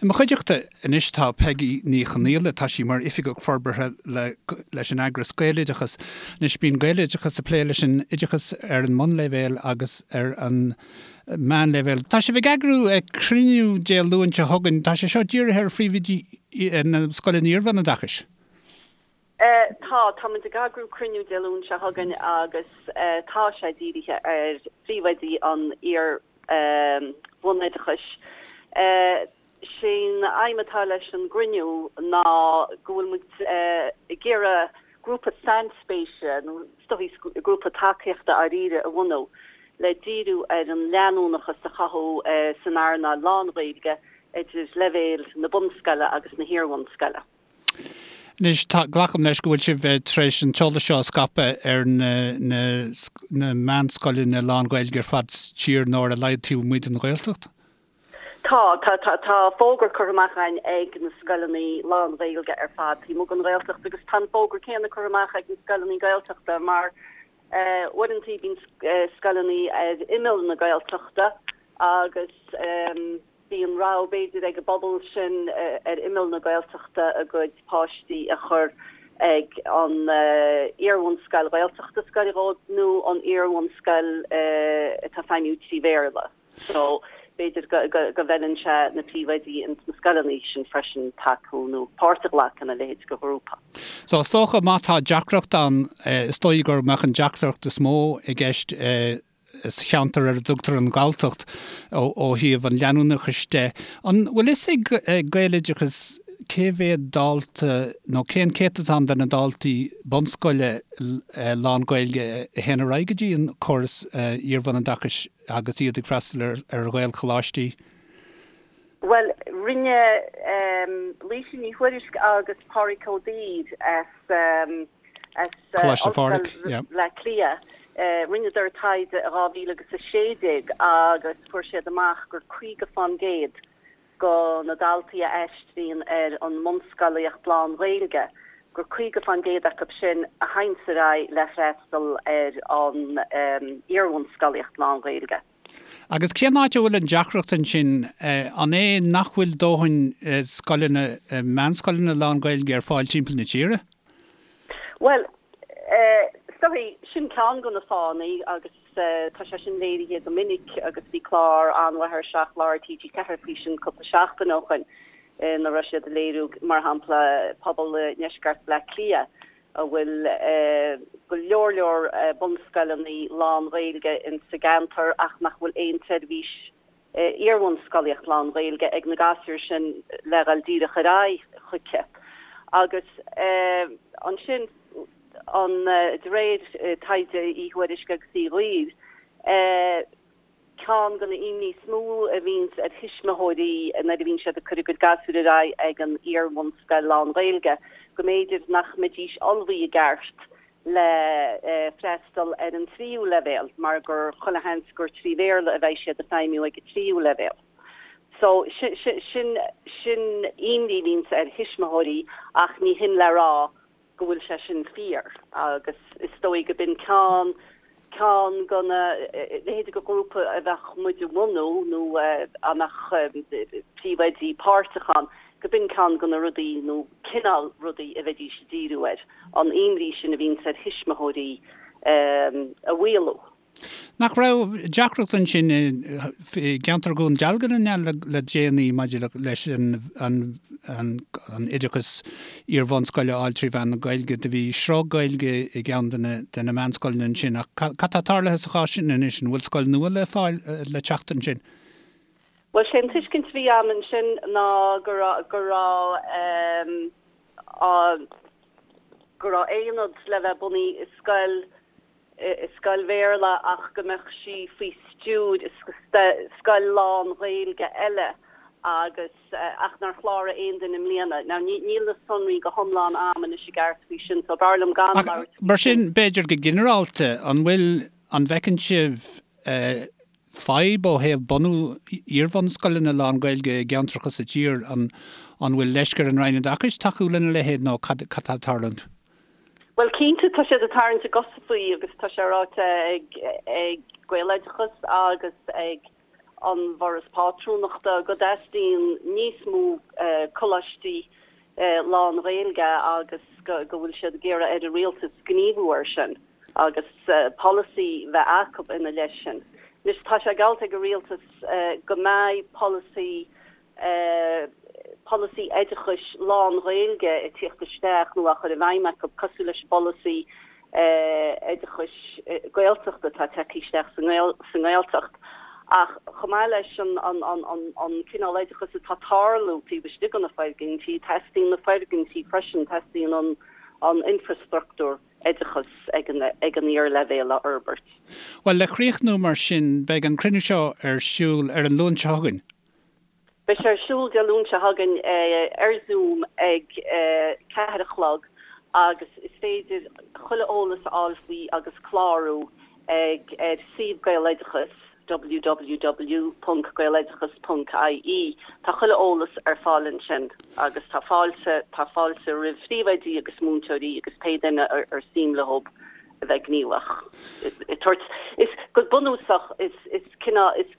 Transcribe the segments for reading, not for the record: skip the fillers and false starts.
I mo chuideachta anois tá Peigí Ní Chonaola, tá sí mar Oifigeach Forbartha le leis an eagras Gaeloideachas. Anois bíonn Gaeloideachas ag plé leis an oideachas ar an mbunleibhéal agus ar an meánleibhéal. Tá sibh ag eagrú cruinniú Dé Luain seo chugainn, tá sé seo dírithe ar phríomhoidí na scoileanna iarbhunoideachais. Tá, tá muid ag eagrú cruinniú Dé Luain seo chugainn agus tá sé dírithe ar phríomhoidí an iar-bhunoideachais. Sé'n aidhm atá leis an gcruinniú ná go bhfuil muid ag iarraidh grúpa sainspéise nó is dóichí grúpa tacaíochta dháiríre a bhunú le díriú ar an leanúnachas a chothú san earnáil lán-Ghaeilge idir leibhéil na bunscoile agus na hiar-bhunscoile. Anois, tá, glacaim leis go bhfuil sibh tar éis an t-eolas seo a scaipeadh ar na, na, na meánscoileanna lán-Ghaeilge ar fad sa tír, nó ar a laghad taobh amuigh den Ghaeltacht? Tá, tá, tá, tá fógra curtha amach againn ag na scoileanna lán-Ghaeilge ar fad taobh amuigh den Ghaeltacht agus tá an fógra céanna curtha amach ag na scoileanna Gaeltachta mar uaireanta bíonn scoileanna ar imeall na Gaeltachta agus Bíonn rogha b'fhéidir ag an bpobal sin ar imeall na Gaeltachta a gcuid páistí a chur ag an iarbhunscoil Ghaeltachta is gaire dhóibh nó an iarbhunscoil atá ag feidhmiú 3 Bhéarla. So b'fhéidir go bhfeileann sé na príomhoidí ins na scoileanna sin freisin tacú nó páirt a ghlacadh ina leithéid de ghrúpa. So is dócha má tá deacracht ann, is dóigh go mbeadh an deacracht is mó i gceist sa cheantar ar a dtugtar an Ghalltacht ó thaobh an leanúnachais de. An bhfuil fhios ag Gaeloideachas cé mhéad dalta nó cén céatadán de na daltaí bunscoile lán-Ghaeilge a théann ar aghaidh go dtí an córas iarbhunoideachais agus iad ag freastal ar Ghaelcholáistí? Bhuel, rinne Laoise Ní Thuairisg agus Pádraig Ó Duibhir as as Coláiste Phádraig, Ollscoil Bhaile Átha Cliath. Rinneadar taighde i 2016 agus fuair siad amach gur 50 fán gcéad go na daltaí a aistríonn ar an mbunscolaíocht lán-Ghaeilge, gur 50 fán gcéad acu sin a théanns ar aghaidh le freastal ar an iarbhunscolaíocht lán-Ghaeilge. Agus cén áit a bhfuil an deacracht ansin? An é nach bhfuil dóthain scoileanna, meánscoileanna lán-Ghaeilge ar fáil timpeall na tíre? Bhuel, is dóigh, sin ceann de na fáthanna agus tá sé sin léirithe go minic agus bhí clár an-mhaith ar 7 Lá ar TG4 faoi sin cúpla seachtain ó shoin ina raibh siad ag léiriú, mar shampla, pobal i ndeisceart Bhaile Átha Cliath a bhfuil go leor leor bunscoileanna lán-Ghaeilge in sa gceantar ach nach bhfuil aon tseirbhís iarbhunscolaíocht lán-Ghaeilge ag na gasúir sin le dhul díreach ar aghaidh chuici. Agus ansin, an de réir taighde Uí Thuairisg agus Uí Dhuibhir, Ceann de na imní is mó a bhíonns ar thuismitheoirí nuair a bhíonn siad ag cur a gcuid gasúr ar aghaidh ag an iar-bhunscoil lán-Ghaeilge, go mb'fhéidir nach mbeidís ullmhaithe i gceart le freastal ar an tríú leibhéal mar gur chuile sheans gur 3 Bhéarla a bheidh siad ag feidhmiú ag an tríú leibhéal. So, sin, sin imní a bhíonns ar thuismitheoirí ach ní hin le rá go bhfuil sé sin fíor agus is dóigh go b'in ceann, ceann de na leithéidí de ghrúpa a bheadh muid a bhunú nó a mbeadh príomhoidí páirteach ann, go b'in ceann de na rudaí nó cineál rudaí a bheidís ag díriú air, an imní sin a bhíonns ar thuismitheoirí a mhaolú. Nach raibh deacracht ansin i gceantar Dhún Dealgan an ea le déanaí maidir leis an oideachas iar-bhunscoile a fháil trí mheán na Gaeilge? Do bhí sruth Gaeilge i gceann de na meánscoileanna ansin ach cad tá tarlaithe sa chás sin anois? An bhfuil scoil nua le fáil le teacht ansin? Bhuel, sé an tuiscint a bhí agam ansin ná go raibh go raibh go raibh aonad le bheith bunaithe i scoil i scoil Bhéarla ach go mbeadh sí faoi stiúir scoil lán-Ghaeilge eile agus ach nár chláraigh aon duine i mbliana. Now níl na sonraí go hiomlán a'm anois i gceart faoi sin so b'fhearr liom gan labhairt faoi sin. Mar sin, b'fhéidir go ginearálta, an bhfuil, an bhfeiceann sibh fadhb ó thaobh bunú iarbhunscoileanna lán-Ghaeilge i gceantracha sa tír? An bhfuil leisce ar an Roinn Oideachais tacú lena leithéid nó cad atá ag tarlúint? Bhuel, cinnte, tá siad ag tarraingt a gcosa faoi agus tá sé ráite ag ag Gaeloideachas agus ag an bhForas Pátrúnachta go dteastaíonn níos mó. Coláistí lán-Ghaeilge agus go bhfuil siad ag iarraidh ar an Rialtas gníomhú air sin agus polasaí bheith acu ina leith sin. Anois tá sé geallta ag an Rialtas go mbeidh polasaí polasaí oideachais lán-Ghaeilge ag tíocht isteach nó á chur i bhfeidhm acu, cosúil leis an bpolasaí oideachais Gaeltachta atá tagtha isteach sa nGaeltacht. Ach chomh maith leis an cineál oideachais atá ag tarlú taobh istigh de na foirgintí, teastaíonn na foirgintí freisin, teastaíonn an infreastruchtúr oideachais ag an iarleibhéal a fhorbairt. Bhuel, le críochnú mar sin, beidh an cruinniú seo ar siúl ar an Luan seo chugainn. Beidh sé ar siúl Dé Luain seo chugainn ar Zoom ag 4 a chlog agus is féidir chuile eolas a fháil faoi agus clárú ag ar suíomh Gaeloideachas, www.gaeloideachas.ie. Tá chuile eolas ar fáil ansin agus tá fáilte tá fáilte roimh phríomhoidí agus múinteoirí agus pé duine ar suim leo a bheith gníomhach. Is go bunúsach is is cineál is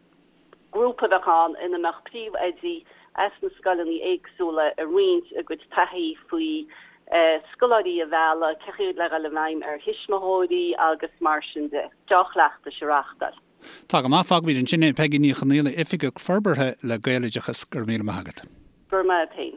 Grúpa a bheadh ann ina mbeadh príomhoidí as na scoileanna éagsúla ag roinnt a gcuid taithí faoi scoláirí a mhealladh, cén chaoi le dhul i bhfeidhm ar thuismitheoirí agus mar sin de. Deá-chleachtais a reáchtáil. Tá go maith, fágfaimid ansin é. Peigí Ní Chonaola, Oifigeach Forbartha le Gaeloideachas, go raibh míle maith agat. Go raibh maith agat féin.